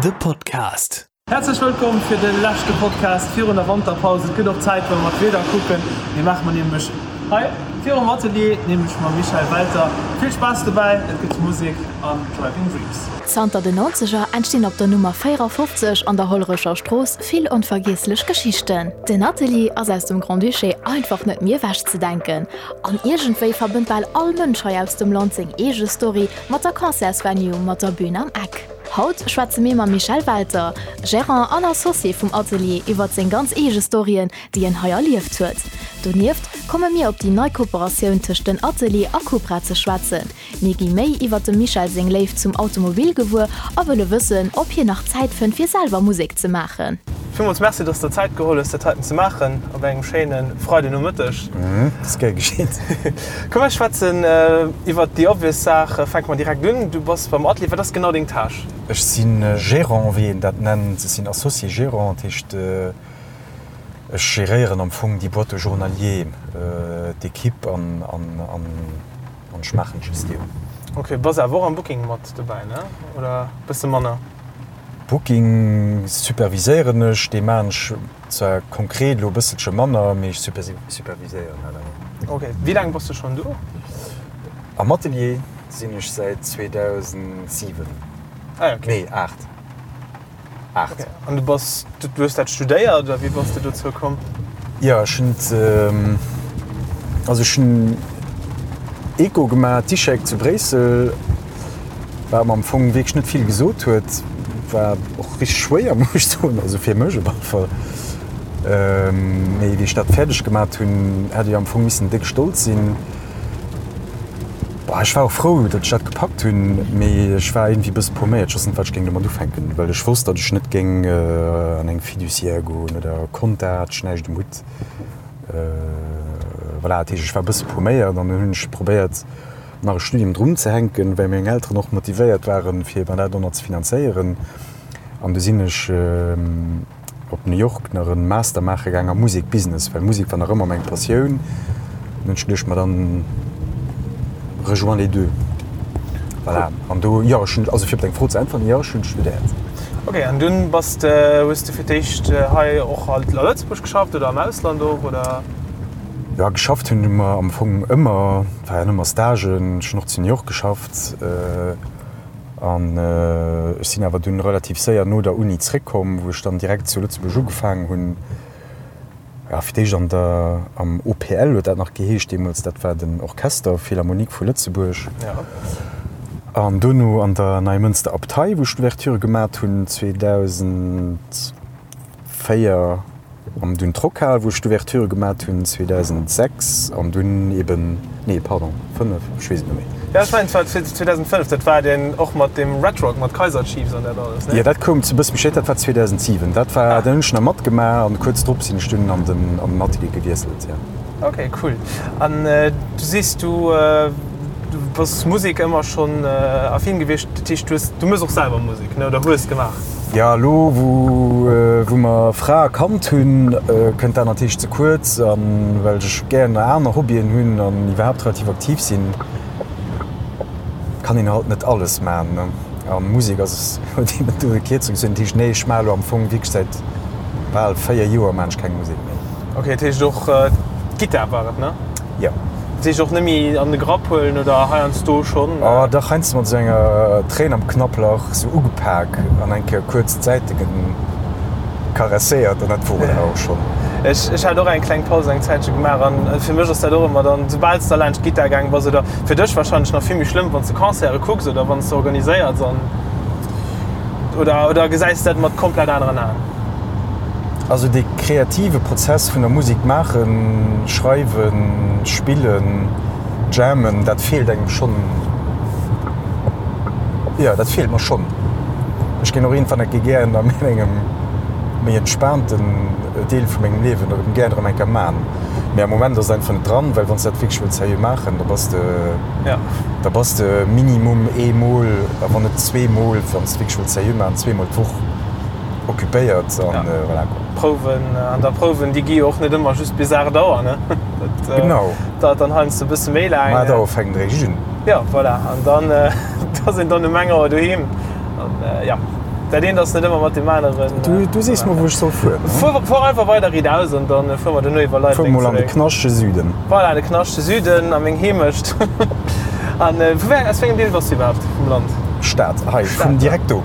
De Podcast. Häerzlech wëllkomm fir de leschte Podcast virun der Wanterpaus. Et gëtt och Zäit, wa mer d'Wieder kucken. Mir maache mer nämlech hei virum Atelier, nämlech mam Michel Welter. Vill Spaass dobäi, et gëtt Musek an Driving Dreams. Zanter den Nonzeger entstinn op der Nummer 54 an der Hollerecher Strooss vill onvergiesslech Geschichten. Den Atelier ass aus dem Grand-Duché einfach net méi ewechzedenken. An iergendwéi verbënnt bal all Mënsch hei aus dem Land seng eege Story mat der Concertsvenue mat der Bün am Eck. Haut schwätze mir mam Michel Welter, Gérant an Associé vum Atelier, iwwert seng ganz eege Storyen, déi en hei erlieft huet. Donieft komme mir op déi nei Kooperatioun tëscht den Atelier a Cupra ze schwätzen. Mir gi méi iwwert dem Michel seng Léift zum Automobil gewuer a wëlle wëssen, ob hien nach Zäit fënnt fir selwer Musek ze maachen. Villmools Merci, dass de der Zäit geholl hues, dat heiten ze maachen op engem schéine Freidenomëtteg. Dat ass gär geschitt. Komm mir schwätzen iwwert déi obvious Saach. Fänke mer direkt un. Du bass beim Atelier. Wat ass genau deng Tâche? Ech si Gérant, wéi een dat nennt. Ech sinn Associé Gérant. Dat heescht, ech geréieren am Fong déi Boîte au journalier, d'Equipe an ech maachen d'Gestioun. Ok, bass awer och am Booking mat dobäi, ne? Oder bësse manner? Booking superviséieren ech, dee maan ech zwar konkret elo e bësselche manner, mee ech superviséieren dat awer. Ok, wéi laang bass de schonn do? Am Atelier sinn ech säit 2007, Ah ok. nee 8, 8. Ok, an du bass, du hues dat studéiert oder wéi bass de dozou komm? Jo, ech hunn et, also ech hunn Eco gemaach, d'ICHEC zu Bréissel. Wat mer am Fong wierklech net vill gesot huet, war och richteg schwéier, muss ech soen, also fir mech op alle Fall. Mee wéi ech dat fäerdeg gemat hunn, hätt ech am Fong missen déck stolz sinn. Bah, ech war och frou, datt ech dat gepackt hunn, mee ech war iergendwéi e bësse pauméiert. Ech wosst net, wat ech géing domat ufänken, well ech wosst, datt ech net géing an eng Fiduciaire goen oder Compta, hat ech näischt um Hutt. Voilà, dat heescht, ech war e bësse pauméiert an dann hunn ech probéiert, nach e Studium drun ze hänken, well meng Elteren och motivéiert waren, fir mer dat och nach ze finanzéieren. An du sinn ech op New York nach e Master maache gaang am Musek Business, well Musek war nach ëmmer meng Passioun. An hunn ech geduecht, ma dann rejoins les deux. Voilà. An do, jo, ech hunn, also fir op deng Fro ze äntweren, jo, ech hunn studéiert. Ok, an dunn bass de, hues de fir d'éischt hei och a Lëtzebuerg geschafft oder am Ausland och, oder? Jo, geschafft hunn mer am Fong ëmmer, et war jo ëmmer Stagen, ech hunn och zu New York geschafft an ech sinn awer dunn relativ séier no der Uni zréckkomm, wou ech dann direkt zu Lëtzebuerg ugefaangen hunn, jo fir d'éischt an der, am OPL huet dat nach geheescht deemools, dat war den Orchester Philharmonique vu Lëtzebuerg an dono an der Neimënster Abtei, wou ech d'Ouverture gemat hunn 2004. An dunn d'Rockhal, wou ech d'Ouverture gemat hunn 2006 an dunn eben, nee pardon, 5, ech weess et net méi. Jo, ech mengen et war 2005, dat war deen och mat deem Red Rock, mat Kaiser Chiefs an dat alles, ne? Jo, dat koum e bësse méi spéit, dat war 2007. Dat war, dat hunn ech nach matgemaach an kuerz drop sinn ech dunn an den, an den Atelier gewiesselt, jo. Ok, cool. An du sees, du bass Musek ëmmer schonn affin gewiescht, dat heescht du hues, du méchs och selwer Musek, ne, oder hues gemaach? Jo, elo wou mer Fra a Kand hunn, kënnt dat natierlech ze kuerz. A well ech gären aner Hobbyen hunn an iwwerhaapt relativ aktiv sinn, kann een halt net alles maachen. A Musek ass, huet een net do de Kierzung gezunn. Dat heescht, nee, ech maache elo am Fong wierklech säit bal 4 Joer maachen ech keng Musek méi. Ok, dat heescht och d'Gittar war et, ne? Jo. Dat heescht och net méi an de Grapp huelen oder heiansdo schonn? Oh dach, heiansdo mat esou enger Tréin am Knapplach esou ugepak an eng Kéier kuerz d'Säite karesséiert an dat wor et awer och schonn. Ech ech hat och eng kleng Paus eng Zäitche gemaach an fir mech ass dat och ëmmer dann, soubal s de laanscht d'Gittar gaang bass oder fir dech warscheinlech nach vill méi schlëmm, wann s de Concerte kucks oder wann s de organiséiers an oder oder gesäis de dat mat komplett aneren Aen? Also dee kreative Prozess vun der Musek maachen, schreiwen, spillen, jammen, dat feelt engem schonn. Jo, dat feelt mer schonn. Ech géing och iergendwann eng Kéier gären a mengem méi entspaanten Deel vu mengem Liewen erëm gären erëm eng Kéier man. Mee am Moment ass et einfach net dran, well wann s de dat wierklech wëlls seriö maachen, da bass de, da bass de minimum eemol, a wann net zweemol, wann s de wierklech wëlls seriö maachen, zweemol d'Woch. Occupéiert an voilà quoi. Prouwen an da Prouwen déi gi jo och net ëmmer just bis 8 Auer ne? Dat genau. Dauert dann heiansdo e bësse méi laang. Um 8 Auer fänkt eréischt un. Jo voilà an dann ass een dann um eng Auer doheem an ja. Dat eent ass net ëmmer mat deem aneren. Du, du sees mer, wou ech soll fueren. Fuer, fuer einfach weider riit aus an dann fuere mer duerno iwwer Fuer Leibleng mol an de zeréck. knaschtege Süden. Voilà, de knaschtege Süden a meng Heemecht. An vu wéi, aus wéi engem Deel bass du iwwerhaapt vum Land? Stad, hei, vun Stad, direkt do.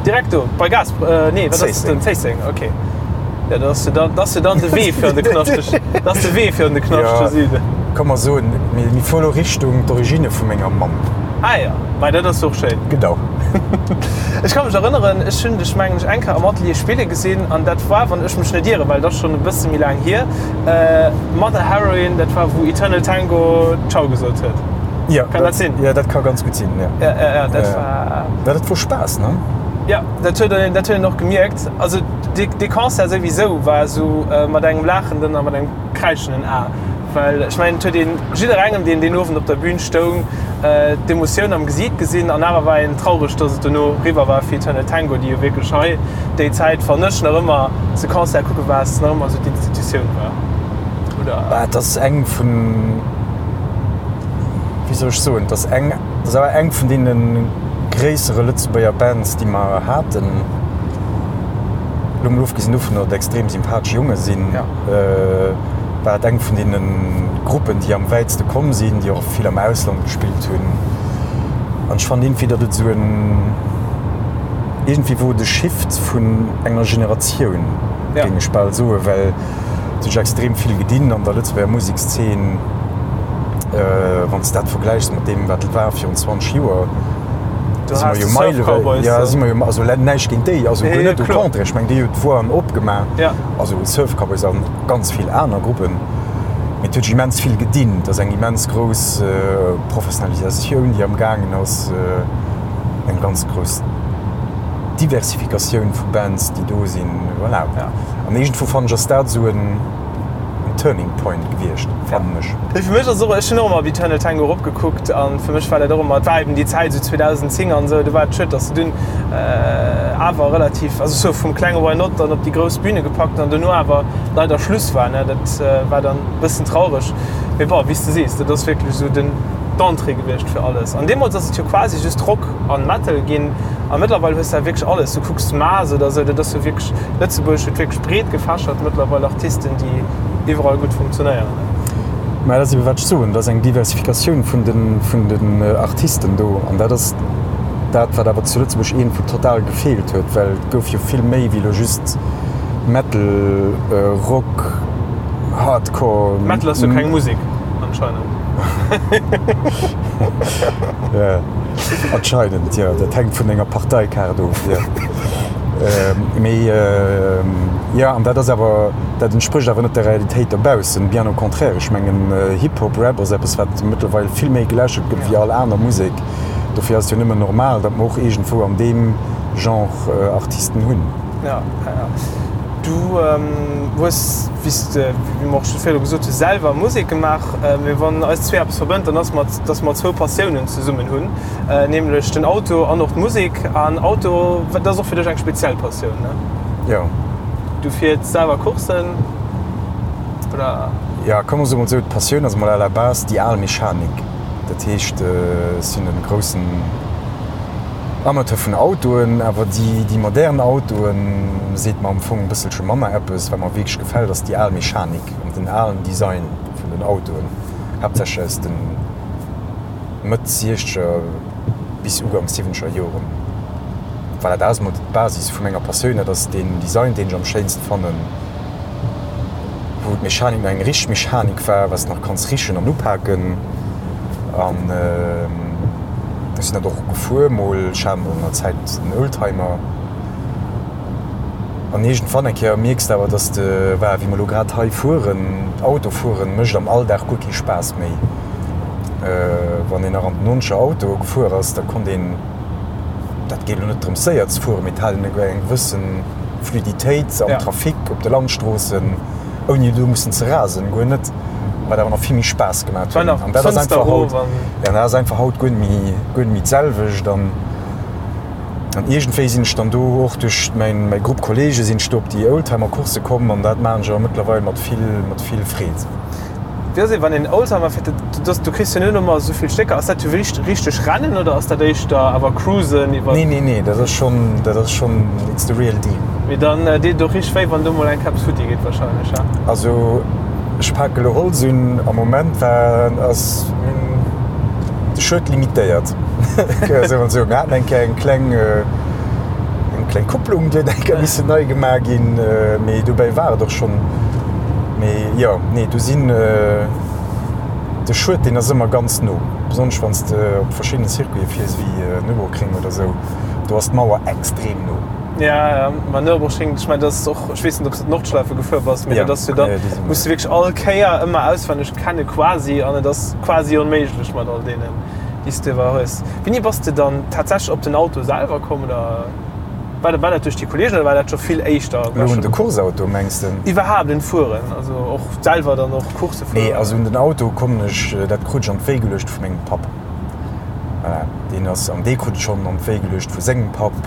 Direkt do, bei Gaas, nee, wat ass dat dann? Zéisseng, ok. Jo, dat ass jo dann, dat ass jo dann de Wee fir an de knaschtege, dat ass de Wee fir an de knaschtege Süden. Ka mer soen, mir, mir fuere lo Richtung d'Origine vu menger Mamm. Ah jo, mei dat ass och schéin. Genau. Ech ka mech erënneren, ech hunn dech mengen ech eng Kéier am Atelier spille gesinn an dat war, wann ech mech net ieren, well et ass schonn e bësse méi laang hier, Mother Heroine, dat war wou Eternal Tango Ciao gesot huet. Jo, Kann dat sinn? Jo, dat ka ganz gutt sinn, jo. Ja, ja, ja, dat war. Ja, dat wor Spaass, ne? Jo, dat huet een, dat huet een och gemierkt. Also dee, dee Concert souwisou war esou mat engem laachenden a mat engem kräischenden A. Well ech mengen, et huet een jidderengem, deen deen Owend op der Bühn stoung, d'Emotioun am Gesiit gesinn. An awer war een traureg, dass et dono eriwwer war fir Eternal Tango, déi jo wierklech hei déi Zäit, wann ech nach ëmmer se Concert kucke war, nach ëmmer esou d'Institutioun war, oder? Bah, et ass eng vun, wéi soll ech soen, et ass eng, et ass awer eng vun deene gréissere Lëtzebuerger Bands, déi mer haten. Elo mol ofgesinn dovun, datt et extrem sympathesch Jonge sinn. War et eng vun deene Gruppen, déi am wäitste komm sinn, déi och vill am Ausland gespillt hunn. An ech fannen iergendwéi, datt et esou en, iergendwéi wor et e Shift vun enger Generatioun, géing ech bal soen, well et huet sech extrem vill gedinn an der Lëtzebuerger Musekszeen, wann s de dat vergläichs mat deem, wat et war virun 20 Joer. Do si mer jo meilewäit, jo, si mer jo, also näischt géint déi, also guer net, au contraire, ech mengen, déi hunn d'Voien opgemaach, also Surf Cowboys an. Ganz vill aner Gruppen. Mee et huet sech immens vill gedinn. Et ass eng immens grouss Professionalisatioun, déi am gaangen ass, eng ganz grouss Diversifikatioun vu Bands, déi do sinn. Voilà. An iergendwou fannen ech, ass dat esou en Turning Point gewiescht, fannen ech. Fir mech ass och, ech hunn och ëmmer op Eternal Tango eropgekuckt an fir mech war dat och ëmmer, et war eben déi Zäit esou 2010 an esou, do war et schued, datt se dunn awer relativ, also sou vum klenge Why Not dann op déi grouss Bühne gepackt an dono awer leider Schluss war, ne, dat war dann e bëssen traureg. Mee bon, wéi s de sees, dat ass wierklech esou den d'Entrée gewiescht fir alles. An deemools ass et jo quasi just Rock an Metal ginn a mëttlerweil hues de wierklech alles. Du kucks Maas oder esou, dat ass jo wierklech, Lëtzebuerg huet wierklech breet gefächert mëttlerweil Artisten, déi iwwerall gutt funktionéieren. Mä dat ass ebe wat ech soen, et ass eng Diversifikatioun vun de, vun den Artisten do an dat ass dat, wat awer zu Lëtzebuerg iergendwou total gefeelt huet, well et gouf jo vill méi wéi elo just Metal, Rock, Hardcore. Metal ass jo keng Musek, anscheinend. Jo, anscheinend, jo. Dat hänkt vun denger Parteikaart of, jo. Mee jo, an dat ass awer, dat entsprécht awer net der Realitéit dobaussen, bien au contraire. Ech mengen, Hip-Hop, Rap ass eppes, wat mëttlerweil vill méi geläschelt gëtt wéi all aner Musek. Dofir ass et jo nëmmen normal, datt mer och iergendwou an deem Genre Artisten hunn. Ja, ja, ja. Du hues, wéi s de, wéi mer och scho virdru gesot hunn, selwer Musek gemaach. Mee wann eis zwee eppes verbënnt, dann ass mat, datt mer zwou Passiounen zesummen hunn, nämlech den Auto an och d'Musek. An Auto, dat ass och fir dech eng speziell Passioun, ne? Jo. Du fiers selwer Courssen, oder? Jo, komm mer soe mol esou, d'Passioun ass mol à la base déi al Mechanik. Dat heescht, ech sinn e groussen Amateur vun Autoen, awer déi modern Autoen seet mer am Fong e bësselche manner eppes. Wat mer wierklech gefält, ass déi al Mechanik an den alen Design vun den Autoen, haaptsächlech aus de Mëtt siechzeger bis Uganks siwwenzeger Joren. Voilà, dat ass emol d'Basis vu menger Passioun. Dat ass deen Design, deen ech am schéinste fannen. Wou d'Mechanik nach eng richteg Mechanik war, wat s de nach kanns richen an upaken. An ech sinn dat och gefuer mol. Ech hat mol an der Zäit en Oldtimer. An iergendwann eng Kéier mierks de awer, dass de, voilà, wéi mer elo grad hei fueren, Autofueren mécht am Alldag guer kee Spaass méi. Wann een nach an den nonzeger Autoe gefuer ass, da konnt een, dat geet elo net drëms séier ze fueren, mee et hat een eng gewëssen Fluiditéit am Trafic op de Landstroossen, ouni do mussen ze rasen, guer net, wat awer nach vill méi Spaass gemaat huet. An dat ass einfach haut, ja, dat ass einfach haut guer net méi, guer net méi d'selwecht. An, an iergendwéi sinn ech dann do och duerch mäin, mäi Grupp Kollege sinn ech do op déi Oldtimer-Coursse komm an dat maachen ech awer mëttlerweil mat vill, mat vill Freed. Wéi ass et wann een Oldtimer fiert, dat du kriss jo net ëmmer esou vill Stécker, ass dat jo richteg Rennen oder ass dat éischter awer Cruisen iwwer? Nee nee nee, dat ass schonn, dat ass schonn, it's the real deal. Mee dann deet et och richteg wéi wann do mol eng Keps futti geet wahrscheinlech, he? Also ech pake lo Holz un, am Moment war ass de Schued limitéiert, soe mer esou. Mir haten eng Kéier eng kleng, eng kleng Kupplung, déi huet eng Kéier missen nei gemaach ginn, mee dobäi war et och schonn. Mee jo, nee, do sinn de Schued, deen ass ëmmer ganz no, besonnesch wann s de op verschiddene Circuite fiers, wéi Nürburgring oder esou, do ass d'Mauer extrem no. Ja, ja, ma Nürburgring, ech mengen, dat ass och, ech weess net, ob s de d'Nordschleife gefuer bass, mee dat ass jo dann, muss de wierklech all Kéier ëmmer auswenneg kenne quasi an et ass quasi onméiglech mat all deenen, déi s de iwwer hues. Wéini bass de dann tatsächlech op den Auto selwer komm oder? War dat, war dat duerch déi Kollegen oder war dat scho vill éischter? Elo un de Courseauto mengs de? Iwwerhaapt un d'Fueren, also och selwer dann och Coursse fueren? Nee, also un den Auto kommen ech, dat krut ech an d'Wéi geluecht vu mengem Papp. Voilà, deen ass, an dee krut et schonn an d'Wéi geluecht vu sengem Papp.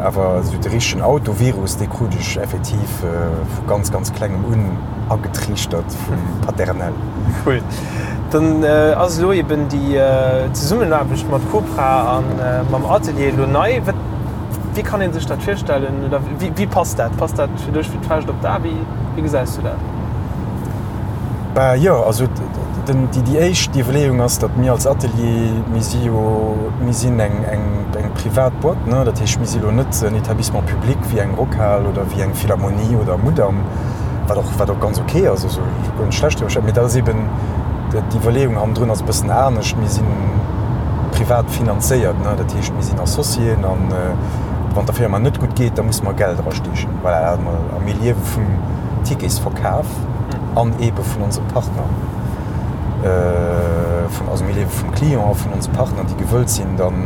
Awer esou de richtegen Autovirus, dee krut ech effektiv vu ganz, ganz klengem un agetriichtert vum Paternel. Cool. Dann ass elo eben déi Zesummenaarbecht mat Cupra a mam Atelier elo nei. Wat, wéi kann ee sech dat virstellen oder wéi passt dat? Passt dat fir dech wéi d'Fauscht op d'A? Wéi gesäis du dat? Bah jo, also den, déi, déi éischt Iwwerleeung ass, datt mir als Atelier, mir si jo, mir sinn eng, eng, eng privat Boîte, ne, dat heescht, mir si elo net en Établissement public wéi eng Rockhal oder wéi eng Philharmonie oder Mudam, wat och, wat och ganz ok ass, also guer net schlecht drüber, mee dat ass eben d'Iwwerleeung hannendrun ass e bëssen anescht, mir si privat finanzéiert, ne, dat heescht, mir sinn Associéen an wann der Firma net gutt geet, da musse mer Geld erasteechen, voilà, dat emol. A mir liewe vum Ticketsverkaf an eebe vun onse Partner, vun, also mir liewe vum Client a vun onse Partner, déi gewëllt sinn dann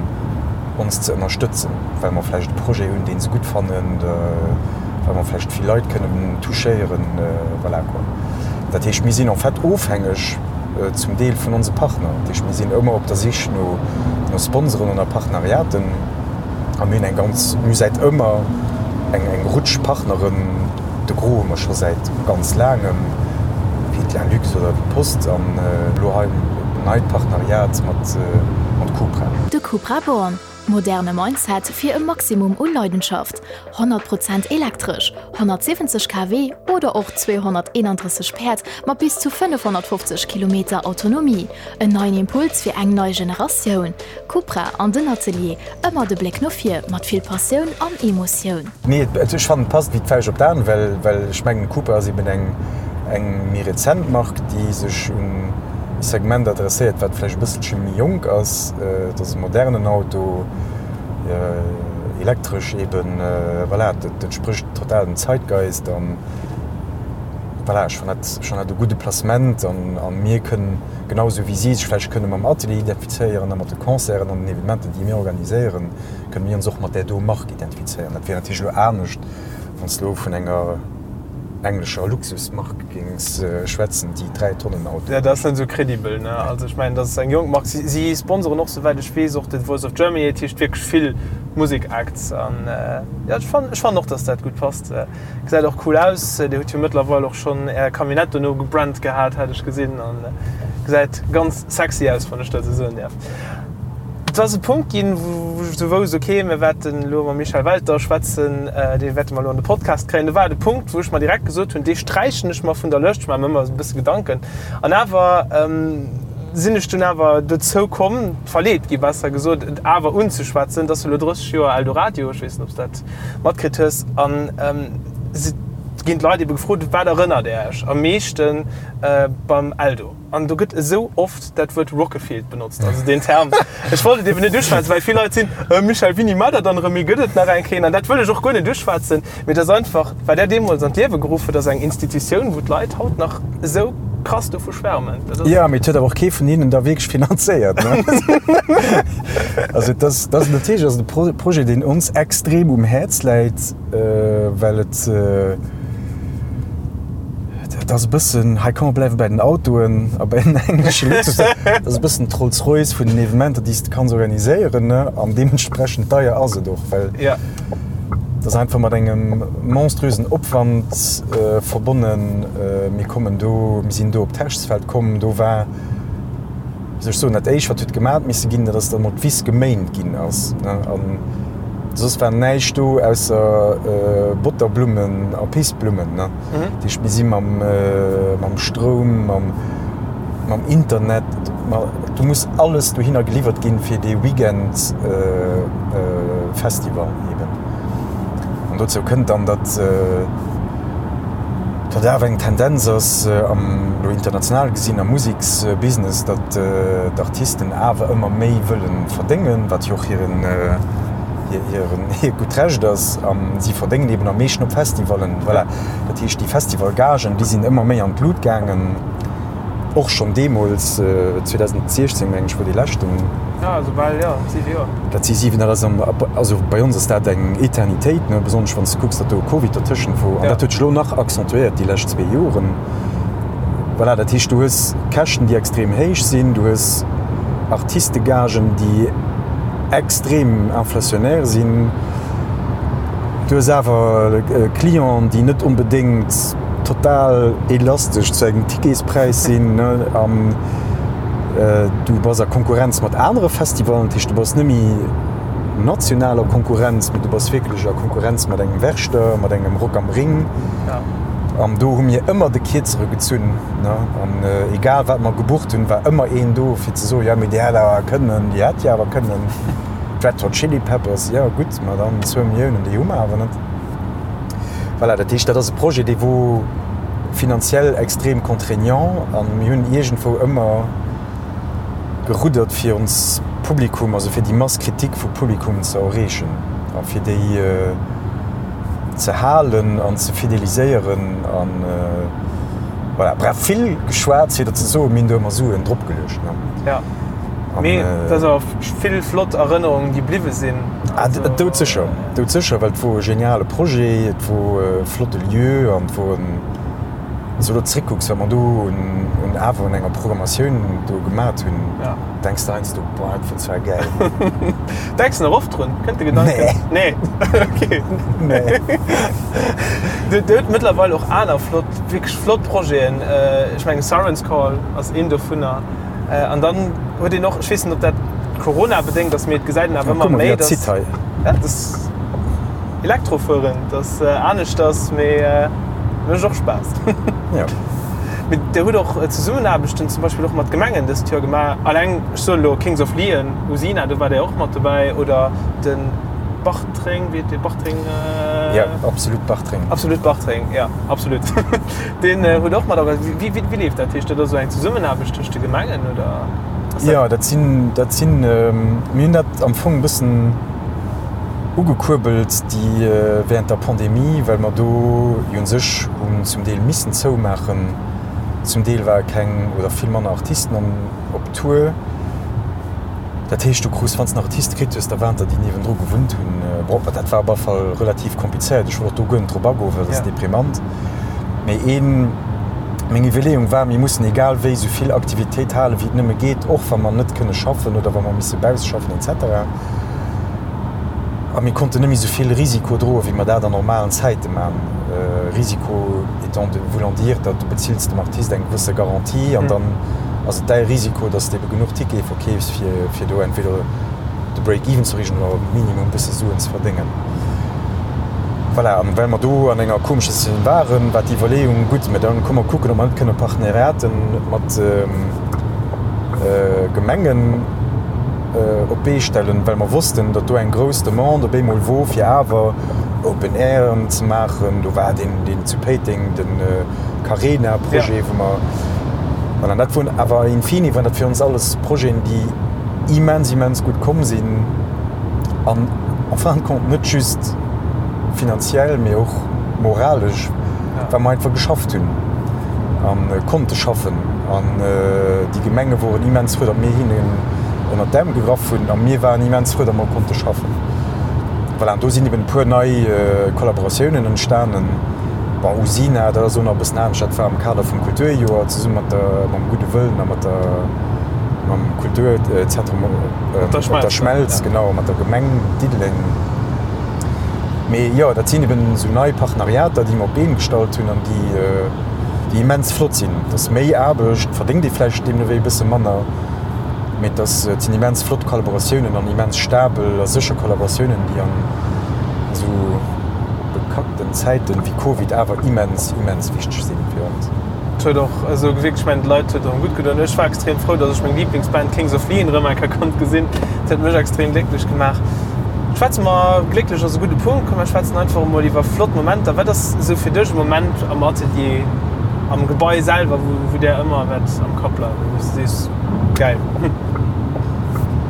ons ze ënnerstëtzen, well mer vläicht e Projet hunn, dee se gutt fannen, well mer vläicht vill Leit kënnen touchéieren, voilà quoi. Dat heescht, mir sinn en fait ofhängeg zum Deel vun onse Partner. Dat heescht, mir sinn ëmmer op der Sich no Sponsoren an a Partenariaten a mir hunn eng ganz, mir hu säit ëmmer eng eng Rutsch Partneren, de Gros hu mer scho säit ganz laangem, wéi d'Lalux oder wéi d'Post an elo hei en neit Partenariat mat Cupra. De Cupra Born, Moderne Mindset fir e Maximum u Leidenschaft, 100 Prozent elektresch, 170 kW oder och 231 Päerd mat bis zu 550 Kilometer Autonomie. En neien Impuls fir eng nei Generatioun. Cupra an den Atelier, ëmmer de Bléck no vir, mat vill Passioun an Emotioun. Nee, ech fannen et passt wéi d'Fauscht op d'An, well well ech mengen Cupra ass eben eng eng méi rezent Mark, déi sech un e Segment adresséiert, wat vläicht e bësselche méi jonk ass. Et ass e modernen Auto, elektresch eben, voilà, dat entsprécht total dem Zeitgeist an voilà, ech fannen dat, ech fannen dat e gudde Placement an a mir kënnen, genau esou wéi si sech vläicht kënne mam Atelier identifizéieren a mat de Concerten an den Evenementen, déi mir organiséieren, kënne mir ons och mat där do Mark identifizéieren. Dat wier natierlech elo anescht, wann s de elo vun enger englescher Luxusmark géings schwätzen, déi 3 Tonnen Auto. Jo, dat ass net esou credibel, ne? Also ech mengen, dat ass eng jonk Mark. Si, si sponsoren och, souwäit ech weess, och de Voice of Germany. Dat heescht wierklech vill Musek-Acts. An jo, ech fannen, ech fannen och, dass dat gutt passt. Gesäit och cool aus. Dir hutt jo mëttlerweil och schonn Är Camionnette dono gebrannt gehat, hat ech gesinn. An gesäit ganz sexy aus, wann ech dat esou soen däerf. Et ass e Punkt ginn, wou ech esou wousst, ok, mir wäerten elo mam Michel Welter schwätzen, dee wäerte mer elo an de Podcast kréien. Do war et e Punkt, wou ech mer direkt gesot hunn, dee sträichen ech mer vun der Lëscht. Ech maache mer ëmmer esou e bësse Gedanken. An awer sinn ech dunn awer dozou komm, verleet gi besser gesot, et awer unzeschwätzen. Et ass elo 30 Joer Eldoradio, ech weess net, ob s de dat matkritt hues. An et ginn d'Leit ebe gefrot, Wat erënnert Är Iech am meeschte beim Eldo? An do gëtt esou oft dat Wuert Rockefield benotzt, also deen Term. Ech wollt et eben net uschwätzen, well vill Leit sinn, Äh, Michel, wéini maacht Der dann erëm ee? Gëtt et nach eng Kéier? An dat wëll ech och guer net uschwätzen, mee et ass einfach, wat Der deemools an d'Liewe geruff hutt, ass eng Institutioun, wou d'Leit haut nach esou krass dovu schwärmen. Dat ass. Jo, mee et huet awer och kee vun hinnen da wierklech finanzéiert, ne? Also et ass, dat ass natierlech ass et e Projet, deen ons extrem um Häerz läit, well et, Dat ass e bëssen, hei komm mer bleiwe bei den Autoen a bei den englesche Luxus. Dat ass e bëssen d'Rolls-Royce vun den Evenementer, déi s de kanns organiséieren, ne? An deementsprechend deier ass et och, well Ja. Et ass einfach mat engem monströsen Opwand verbonnen. Mir kommen do, mir sinn do op d'Herrschsfeld komm, do war, wéi soll ech soen, dat éischt wat huet gemat misse ginn, dat ass, datt emol d'Wiss geméint ginn ass. An soss war näischt do ausser Botterblummen a Pissblummen. Dat heescht, mir si mam Stroum, mam Internet, do muss alles dohinner geliwwert ginn fir dee Weekend Festival eben. An dozou kënnt dann, datt datt awer eng Tendenz ass am, elo international gesinn, am Museksbusiness, datt d'Artisten awer ëmmer méi wëlle verdéngen, wat jo och hiren, hiren, hiert gutt Recht ass. A si verdéngen eben am meeschten op Festivallen. Voilà. Dat heescht, déi Festivalgagen, déi sinn ëmmer méi an d'Lut gaangen. Och schonn deemools, 2016 meng ech, wor dee leschten. Ja, esou bal, jo, 7 Joer. Dat si 7, dat ass am, also bei ons ass dat eng Eternitéit, ne, besonnesch wann s de kucks, datt do Covid dertëschent wor. An dat huet sech elo nach accentuéiert déi lescht zwee Joren. Voilà, dat heescht, du hues Käschten, déi extrem héich sinn, du hues Artistegagen, déi extrem inflationnaire sinn, du hues awer Clienten, déi net onbedéngt, total elastesch zu engem Ticketspräis sinn an du bass a Konkurrenz mat anere Festivalen, dat heescht du bass net méi national a Konkurrenz, mee du bass wierklech a Konkurrenz mat engem Werchter, mat engem Rock am Ring. An do hu mir ëmmer de Kierzere gezunn an egal wat mer gebucht hunn, war ëmmer een do fir ze soen, jo mee déi hätt awer kënnen, déi hätt jo awer kënnen. D'Red Hot Chili Peppers, jo gutt, ma dann zwou Milliounen, déi hu mer awer net. Voilà, dat heescht, dat ass e Projet, dee wor finanziell extrem contraignant a mir hunn iergendwou ëmmer geruddert, fir ons Publikum, also fir déi Masse critique vu Publikum ze erreechen a fir déi ze halen an ze fideliséieren an voilà. Bref, vill geschwat, fir der ze soen, mir hunn do ëmmer Suen dropgeluecht. Ja. Mee et ass awer vill flott Erënnerungen, déi bliwwe sinn. Ah, doudsécher, doudsécher, well et wor e geniale Projet, et wor e flotte Lieu an et wor en, wann s du elo zréckkucks, wat mer do un awer un enger Programmatioun do gemat hunn, denks de heiansdo, boah, dat wor zwar gäil. Denks de nach oft drun? Kënnt de Gedanken? Nee. Nee, okay. Nee. Dir hutt mëttlerweil och aner flott, wierklech flott Projeten. Ech mengen Siren's Call ass een dovunner. An dann huet een och, ech weess net, ob dat Corona-bedéngt ass, mee et gesäit een awer ëmmer méi, dass. Ja, dass Elektrofueren, dass aneschters, mee mécht och Spaass. Ja. Mee Dir hutt och Zesummenaarbechten zum Beispill och mat Gemengen dëst Joer gemaach. Alleng, ech soen elo Kings of Leon, Usina, do war Dir och mat dobäi, oder de Bartreng, wéi heet dee Bartreng? Ja, Absolut Bartreng. Absolut Bartreng, ja, absolut. Deen huet och mat organiséiert. Wéi, wéi leeft dat? Heescht dat ass esou eng Zesummenaarbecht tëscht de Gemengen oder ass dat? Jo, dat sinn, dat sinn, mir hunn dat am Fong e bëssen ugekuerbelt déi während der Pandemie, well mer do jo u sech hunn zum Deel missen zoumaachen. Zum Deel ware keng oder vill manner Artisten an op Tour. Dat heescht, du krus, wann s de en Artist kritt hues, da waren der, déi niewendru gewunnt hunn. Bon, dat war op alle Fall relativ komplizéiert. Ech wëll och do guer net drop agoen, well dat ass deprimant. Mee een, meng Iwwerleeung war, mir mussen egal wéi esou vill Aktivitéit halen, wéi et nëmme geet, och wa mer net kënne schaffen oder wa mer misse bausse schaffen et cetera. A mir konnten net méi esou vill Risiko droen, wéi mer dat an normalen Zäite man. Risiko étant de voulant dire, datt du bezills dem Artist eng gewësse Garantie an dann ass et däi Risiko, datt s de ebe genuch Tickete verkeefs, fir, fir do entweder de Break-even ze erreechen oder minimum e bësse Suen ze verdéngen. Voilà, an well mer do an enger komescher Situatioun waren, war d'Iwwerleeung, gutt, mä dann komm mer kucken, ob mer net kënne Partenariaten mat Gemengen op d'Bee stellen, well mer wossten, datt do eng grouss Demande op eemol wor, fir awer Open Airen ze maachen. Do war deen, deen zu Péiteng, de Carena-Projet, wou mer, voilà, dat woren awer in fine waren dat fir ons alles Projeten, déi immens, immens gutt komm sinn an en fin de compte net just finanziell, mee och moralesch, well mer einfach geschafft hunn a konnte schaffen. An déi Gemenge woren immens frou, datt mir hinnen ënnert d'Äerm gegraff hunn a mir waren immens frou, datt mer konnte schaffen. Voilà, an do sinn eben e puer nei Kollaboratiounen entstanen. Bon, Usina, dat ass elo nach e bëssen anescht, dat war am Kader vum Kulturjoer zesumme mat der, mam Gudde Wëllen a mat der, mam Kulturzentrum op der Schmelz, genau, mat der Gemeng Diddeleng. Mee jo, dat sinn eben esou nei Partenariater, déi mer op d'Been gestallt hunn an déi, déi immens flott sinn. Et ass méi Aarbecht, verdéngt ee vläicht deemno wéi e bësse manner, mee et ass, et sinn immens flott Kollaboratiounen an immens stabel a sécher Kollaboratiounen, déi an esou bekackten Zäiten wéi Covid awer immens, immens wichteg sinn fir ons. Et huet och esou gewierkt, ech mengen d'Leit huet erëm gutt gedoen. Ech war extrem frou, datt ech meng Liblingsband Kings of Leon erëm eng Kéier konnt gesinn. Dat huet mech extrem glécklech gemaach. Schwätze mer, glécklech ass e gudde Punkt, komm mer schwätzen einfach emol iwwer flott Momenter. Wat ass esou fir dech e Moment am Atelier, am Gebai selwer, wou, wou där ëmmer wäert am Kapp bleiwen, wou s de sees, gäil?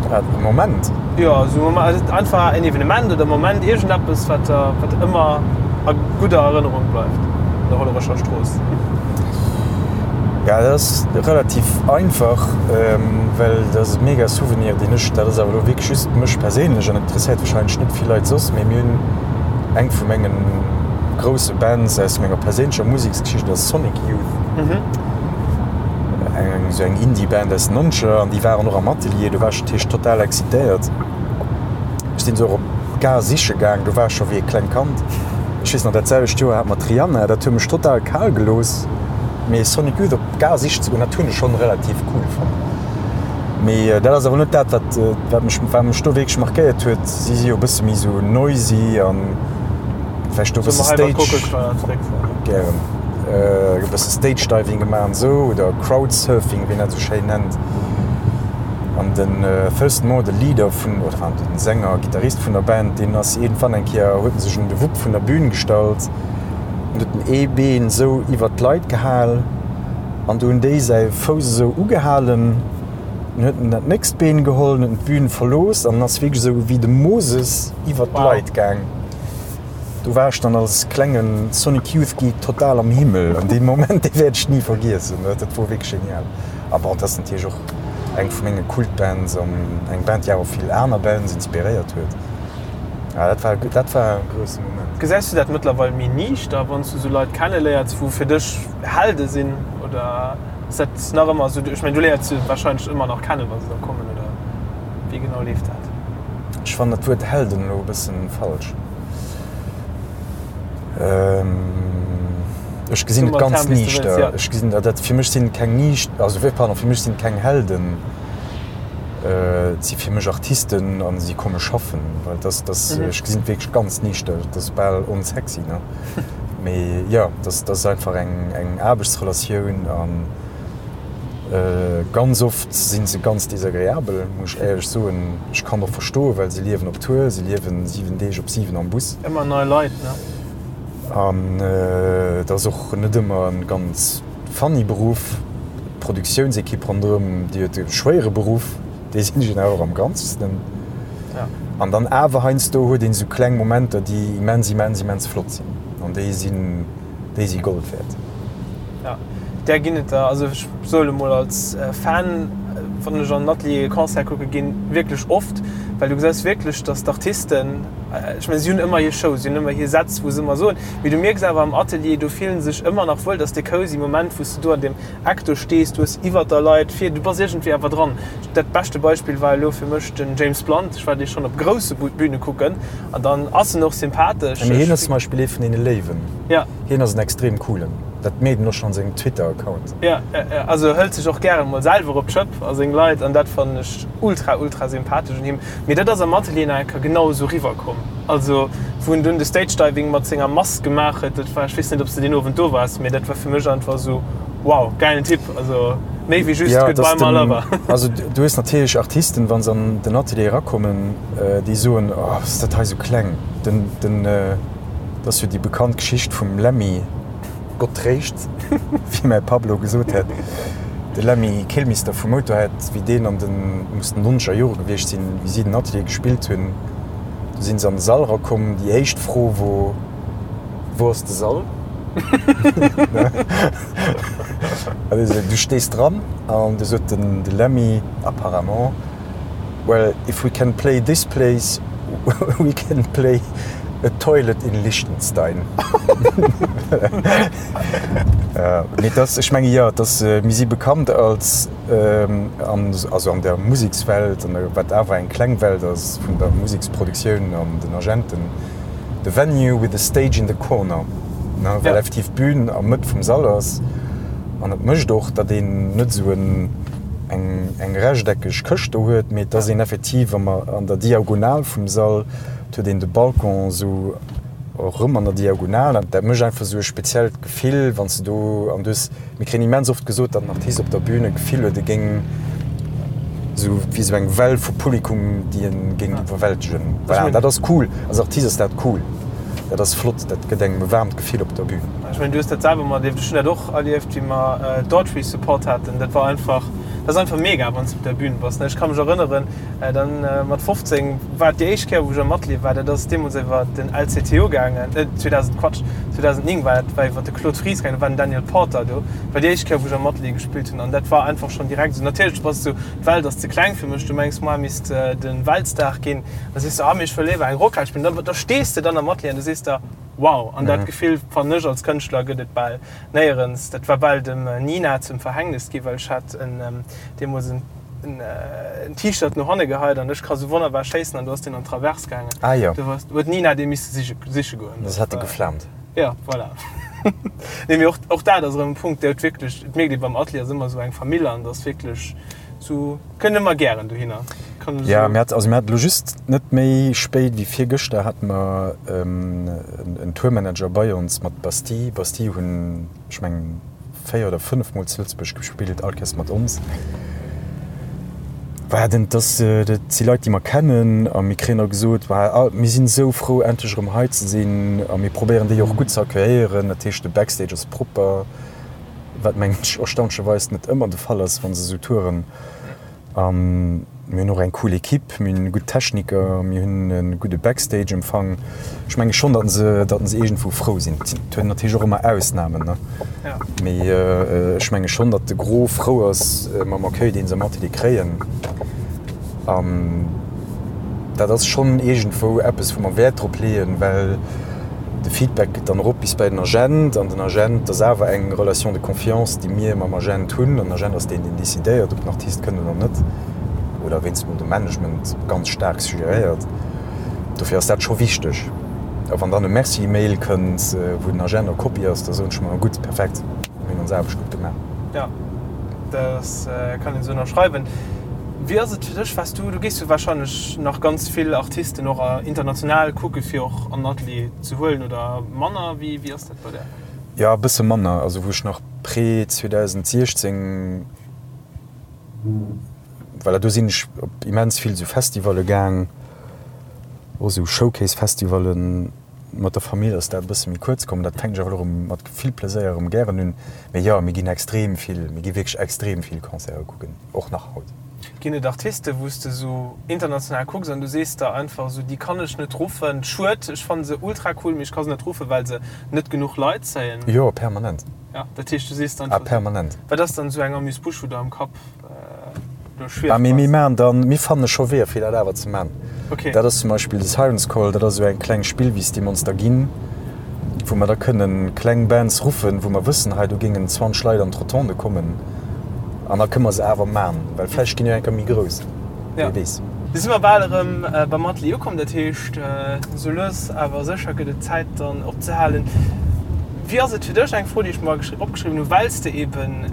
Wat, e Moment? Jo, esou e Moment, einfach en Evenement oder e Moment, iergendeppes, wat der, wat ëmmer a gudder Erënnerung bleift an der Hollerecher Strooss. Ja, dat ass relativ einfach, well dat ass e mega Souvenir, deen ech, dat ass awer elo wierklech just mech perséinlech an interesséiert warscheinlech net vill Leit soss, mee mir hunn eng vu menge grousse Bands aus menger perséinlecher Museksgeschicht ass Sonic Youth, eng esou eng Indie-Band aus den Nonzeger an déi waren och am Atelier, do war ech natierlech total excitéiert. Ech sinn se och op d'Gare siche gaang, do war ech scho wéi e klengt Kand. Ech weess nach, dat selwecht Joer hat mer d'Rihanna, dat huet mech total kal gelooss. Mee Sonic Youth op d'Gare sichen ze goen, dat hunn ech schonn relativ cool fonnt. Mee dat ass awer net dat, wat, wat mech, wat mech do wierklech markéiert huet. Si si jo e bësse méi sou noisy an vläicht do e bësse Stage, gären, e bësse Stage Diving gemaach an esou oder Crowd Surfing, wéi een dat esou schéin nennt. An den Thurston Moore, de Leader vun, oder enfin den Sänger, Gittarist vun der Band, deen ass iergendwann eng Kéier, huet en sech un de Wupp vun der Bühn gestallt an huet en ee Been esou iwwert d'Leit gehal an du hunn déi säi Fouss esou ugehalen. Dann huet en dat nächst Been geholl, huet en d'Bühn verlooss an ass wierklech esou wéi de Moses iwwert d'Leit gaang. Do war ech dann als klengen Sonic Youth Geek total am Himmel an dee Moment, dee wäert ech ni vergiessen. Dat wor wierklech genial. A bon, et ass natierlech och eng vu menge Kultbands an eng Band, déi awer vill aner Bands inspiréiert huet. Ja, dat war, dat war e grousse Moment. Gesäis du dat mëttlerweil méi niichter, wann s du esou Leit kenneléiers, wou fir dech Helde sinn? Oder ass dat nach ëmmer esou? Ech mengen, du léiers se warscheinlech ëmmer nach kennen, wa se da kommen, oder wéi genau leeft dat? Ech fannen dat Wuert Helden elo e bëssen falsch. Ech gesinn et ganz niichter. Ech gesinn dat, dat fir mech sinn et keng niicht, also pardon, fir mech sinn et keng Helden. Et si fir mech Artisten a si komme schaffen, well dass, dass, ech gesinn et wierklech ganz niichter, dat ass bal onsexy, ne? Mee jo, dat, dat ass einfach eng, eng Aarbechtsrelatioun an Ganz oft si se ganz desagreabel, muss ech éierlech soen. Ech kann och verstoen, well se liewen op Tour, se liewen 7 Deeg op 7 am Bus. Ëmmer nei Leit, ne? An et ass och net ëmmer e ganz funny Beruff. D'Produktiounsekipp ronderëm, déi huet e schwéiere Beruff, déi sinn ech awer am Ganzesten. An dann awer heiansdo huet een esou kleng Momenter, déi immens, immens, immens flott sinn. An déi sinn. déi si Gold wäert. Ja, där ginn et der. Also ech soe mol als Fan, wann ech an den Atelier e Concert kucke ginn, wierklech oft, well du gesäis wierklech, datt d'Artisten, ech mengen si hunn ëmmer hir Show, si hunn ëmmer hir Sätz wou se ëmmer soen, mee du mierks awer am Atelier, do fillen se sech ëmmer nach wuel, datt dee cozy Moment wou s du do an deem Eck do stees, du hues iwwert der Leit vir, du bass iergendwéi awer dran. Dat beschte Beispill war elo fir mech den James Blunt, ech war dee schonn op grousse Bühne kucken an dann ass en och sympathesch. Mee hien ass zum Beispill ee vun deene Léiwen. Ja. Hien ass en extrem coolen. Dat mierkt een och schonn an sengem Twitter-Account. Ja, ja, ja. Also hëlt sech och gären mol selwer op d'Schëpp a seng Leit an dat fannen ech ultra, ultra sympathesch un him. Mee dat ass am Atelier nach eng Kéier genau esou riwwer komm. Also wou en dunn de Stage Diving mat senger Mask gemaach huet, dat war, ech weess net ob s de deen Owend do waars, mee dat war fir mech einfach esou, Wow, gäilen Typ, also méi wéi just Ja, Goodbye dass my den, lover. also du hues natierlech Artisten, wa se an den Atelier erakommen, déi soen, oh, ass dat hei sou kleng. Den, den, dat ass jo déi bekannt Geschicht vum Lemmy, Gott tréischt, wéi mäi Papp elo gesot hätt, de Lemmy Kilmister vu Motörhead, wéi deen an den, muss den nonzeger Jore gewiescht sinn, wéi si den Atelier gespillt hunn, do si se an de Sall erakomm, déi éischt Fro wor, Wou ass de Sall? Du stees dran an du sot den de Lemmy apparemment, Well if we can play this place, we can play a toilet in Liechtenstein. Mee et ass, ech menge jo, et ass, mir si bekannt als, an, also an der Musekswelt, an der, wat awer eng kleng Welt ass vun der Museksproduktioun an den Agenten. The venue with the stage in the corner, ne, well effektiv d'Bün am Mëtt vum Sall ass. An et mécht och, datt een net esou en, eng, eng rechteckeg Këscht do huet, mee et ass een effektiv am, an der Diagonal vum Sall. Et huet een de Balcon esou erëm an der Diagonal. An dat mécht einfach esou e speziellt Gefill, wann s de do, an du hues, mir kréien immens oft gesot, datt den Artist op der Bün e Gefill huet, e géing esou wéi esou eng Well vu Publikum, déi e géing iwwerwältegen. Voilà, an dat ass cool. Als Artist ass dat cool. Dat ass flott, dat gëtt engem e waarmt Gefill op der Bün. Ech mengen, du hues dat selwer materlieft, ech hunn dat och erlieft, wéi mer Daughtry Support haten. Dat war einfach, dat ass einfach mega, wann s de op der Bün bass. Ech ka mech erënneren, Dann mat 15 war et déi éischt Kéier wou ech am Atelier war, dat ass deemools iwwer den LCTO gaangen, 2000, Quatsch, 2009 war dat, war iwwer de Claude Fries gaangen, do war den Daniel Porter do, war déi éischt Kéier wou ech am Atelier gespillt hunn an dat war einfach schonn direkt esou, natierlech bass du, d'Welt ass ze kleng fir mech, du mengs moi misst de Weltstar ginn, da sees du, ah mee ech wëll léiwer eng Rockhal spillen, da da stees de dann am Atelier an du sees der, wow, an dat Gefill fannen ech als Kënschtler gëtt et bal néierens, dat war bal dem Nina zum Verhängnis gi well ech hat en deemools en. en T-Shirt no hanne geheit an ech ka sou wonnerbar schéissen an do ass deen an d'Traverse gaangen. Ah jo. Do hues, huet d'Nina dee misse siche, siche goen. Das hat e geflaamt. Ja, voilà. Nee, mee och, och dat ass erëm e Punkt, dee huet wierklech, et mierkt ee beim Atelier ass ëmmer sou eng Famill an et ass wierklech sou, kënnt ëmmer gären dohinner. Kann esou. Ja, mir hat, also mir haten elo just net méi spéit wéi virgëschter hate mer en Tourmanager bei ons mat Bastille. Bastille hunn, ech mengen, 4 oder 5 mol zu Lëtzebuerg gespillt, all Kéiers mat ons. War den, dass, dat si Leit, déi mer kennen a mir kréien da gesot, War, mir sinn esou frou, endlech erëm hei ze sinn a mir probéieren déi och gutt ze accueilléieren. Dat heescht, de Backstage ass propper, wat mengen ech erstaunlecherweis net ëmmer de Fall ass, wa se esou touren. A mir hunn och eng cool Equipe, mir hunn gutt Techniker, mir hunn e gudde Backstage-Empfang. Ech menge schonn, datt se, datt se iergendwou frou sinn. Et huet natierlech och ëmmer Ausnamen, ne? Mee ech menge schonn, datt de Gros frou ass mam Accueil, dee se am Atelier kréien. An dat ass schonn iergendwou eppes, wou mer Wäert drop leeën, well de Feedback geet dann erop bis bei den Agent an den Agent, dat ass awer eng Relation de confiance, déi mir mam Agent hunn. An den Agent ass deen, deen decidéiert, ob den Artist kënnt oder net, oder wéinst mol de Management ganz staark suggeréiert. Dofir ass dat scho wichteg. A wann dann e Merci-Mail kënnt, wou den Agent a Kopie ass, da soen ech mer, gutt, perfekt, mir hunn ons Aarbecht gutt gemaach. Jo, dat kann een esou ënnerschreiwen. Wéi ass et fir dech, waars du, du gees jo wahrscheinlech nach ganz vill Artisten och international kucke fir och an den Atelier ze huelen oder manner? Wéi wéi ass dat bei där? Jo, e bësse manner. Also wou ech nach pré 2016, voilà, do sinn ech op immens vill esou Festivalle gaang, och esou Showcase-Festivallen. Mat der Famill ass dat e bësse méi kuerz komm. Dat fänken ech awer elo erëm mat vill Pleséier erëm gären un. Mee jo, mir ginn extrem vill, mir gi wierklech extrem vill Concerte kucken, och nach haut. Ginn et Artisten, wou s de esou international kucks an du sees der einfach esou, déi kann ech net ruffen, schued, ech fanne se ultra cool, mee ech ka se net ruffen, well se net genuch Leit zéien? Jo, permanent. Ja, dat heescht, du sees dann einfach. Ah, permanent. Wat ass dann esou eng Amuse-bouche, wou der am Kapp elo schwieft? Ah, mee mir maachen dann, mir fanne scho Weeër, fir dat awer ze maachen. Okay. Dat ass zum Beispill de Siren's Call, dat ass esou eng kleng Spillwiss, déi mer ons da ginn, wou mer da kënnen kleng Bands ruffen, wou mer wëssen, hei do géingen 20 Leit an d'Rotonde kommen an da kënne mer se awer man, well vläicht ginn jo eng Kéier méi grouss, wie weess. Du si mer bal erëm beim Atelier ukomm, dat heescht esou lues awer sécher gëtt et Zäit dann opzehalen. Wéi ass et fir dech, eng Fro déi ech mer opgeschriwwen hunn, well s de eben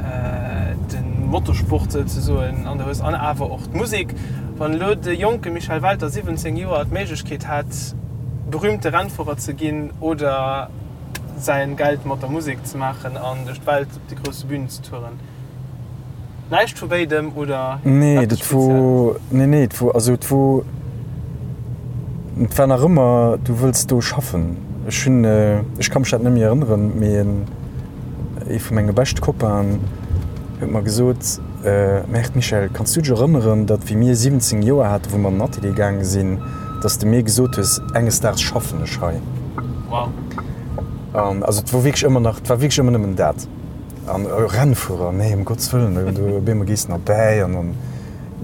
de Motorsport souzesoen an der hues an awer och d'Musek, wann elo de jonke Michel Welter, 17 Joer, d'Méiglechkeet hätt berühmte Rennfuerer ze ginn oder säin Geld mat der Musek ze maachen an duerch d'Welt op de grousse Bünen ze touren? Näischt vu béidem oder Nee, eppes dat wor, Spezielles? nee, nee, et wor, also et wor, et war nach ëmmer, du wëlls do schaffen. Ech hunn, ech ka mech dat net méi erënneren, mee en, ee vu menge beschte Copainen huet mer gesot, Merde Michel, kanns du dech erënneren, datt wéi mir 17 Joer haten, wou mer an den Atelier gaange sinn, datt s de mir gesot hues, enges Daags schaffen ech hei. Wow. An also et wor wierklech ëmmer nach, et war wierklech ëmmer nëmmen dat. An Rennfuerer, nee, ëm Gottes Wëllen, do op eemol gees de erbäi an dann,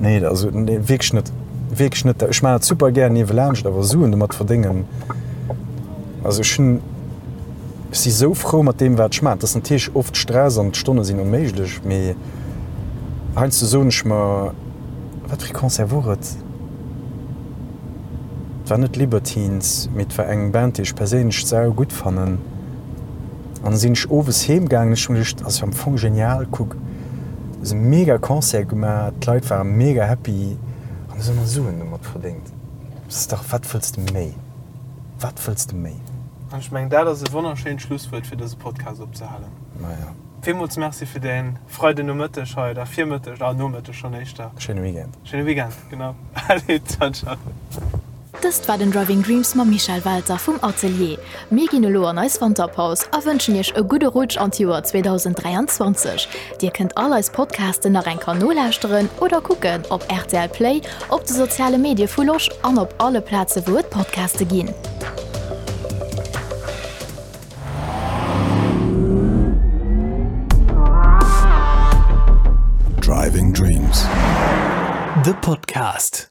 nee, also nee, wierklech net, wierklech net. Ech maachen dat super gär niewelaanscht, awer Suen domat verdéngen, also ech hunn, ech si sou frou mat deem, wat ech maachen. Et ass natierlech oft Stress an d'Stonne sinn onméiglech, mee heiansdo soen ech mer, wat fir ee Concert wor et? Et war net Libertines, mee et war eng Band, déi ech perséinlech sau gutt fannen. An da sinn ech owes heem gaangen, ech hu mir geduecht, ass jo am Fong genial, kuck, hues e mega Concert gemaach, d'Leit ware mega happy an hues och nach Suen domat verdéngt. Dat ass dach, wat wëlls de méi? Wat wëlls de méi? An ech mengen, dat ass e wonnerschéint Schlusswuert, fir dëse Podcast opzehalen. Maja. Villmools Merci fir däin Freidenomëtteg hei, oder Virmëtteg, ah Nomëtteg schonn éischter. Schéine Weekend. Schéine Weekend, genau. Allez, ciao, ciao. Dëst war den Driving Dreams mam Michel Welter vum Atelier. Mir ginn elo an eis Wanterpaus a wënschen iech e gudde Rutsch an d'Joer 2023. Dir kënnt all eis Podcasten nach eng Keier nolauschteren oder kucken op rtl Play, op de soziale Medie vu Losch an op alle Plaze wou et Podcaste ginn. Driving Dreams, de Podcast.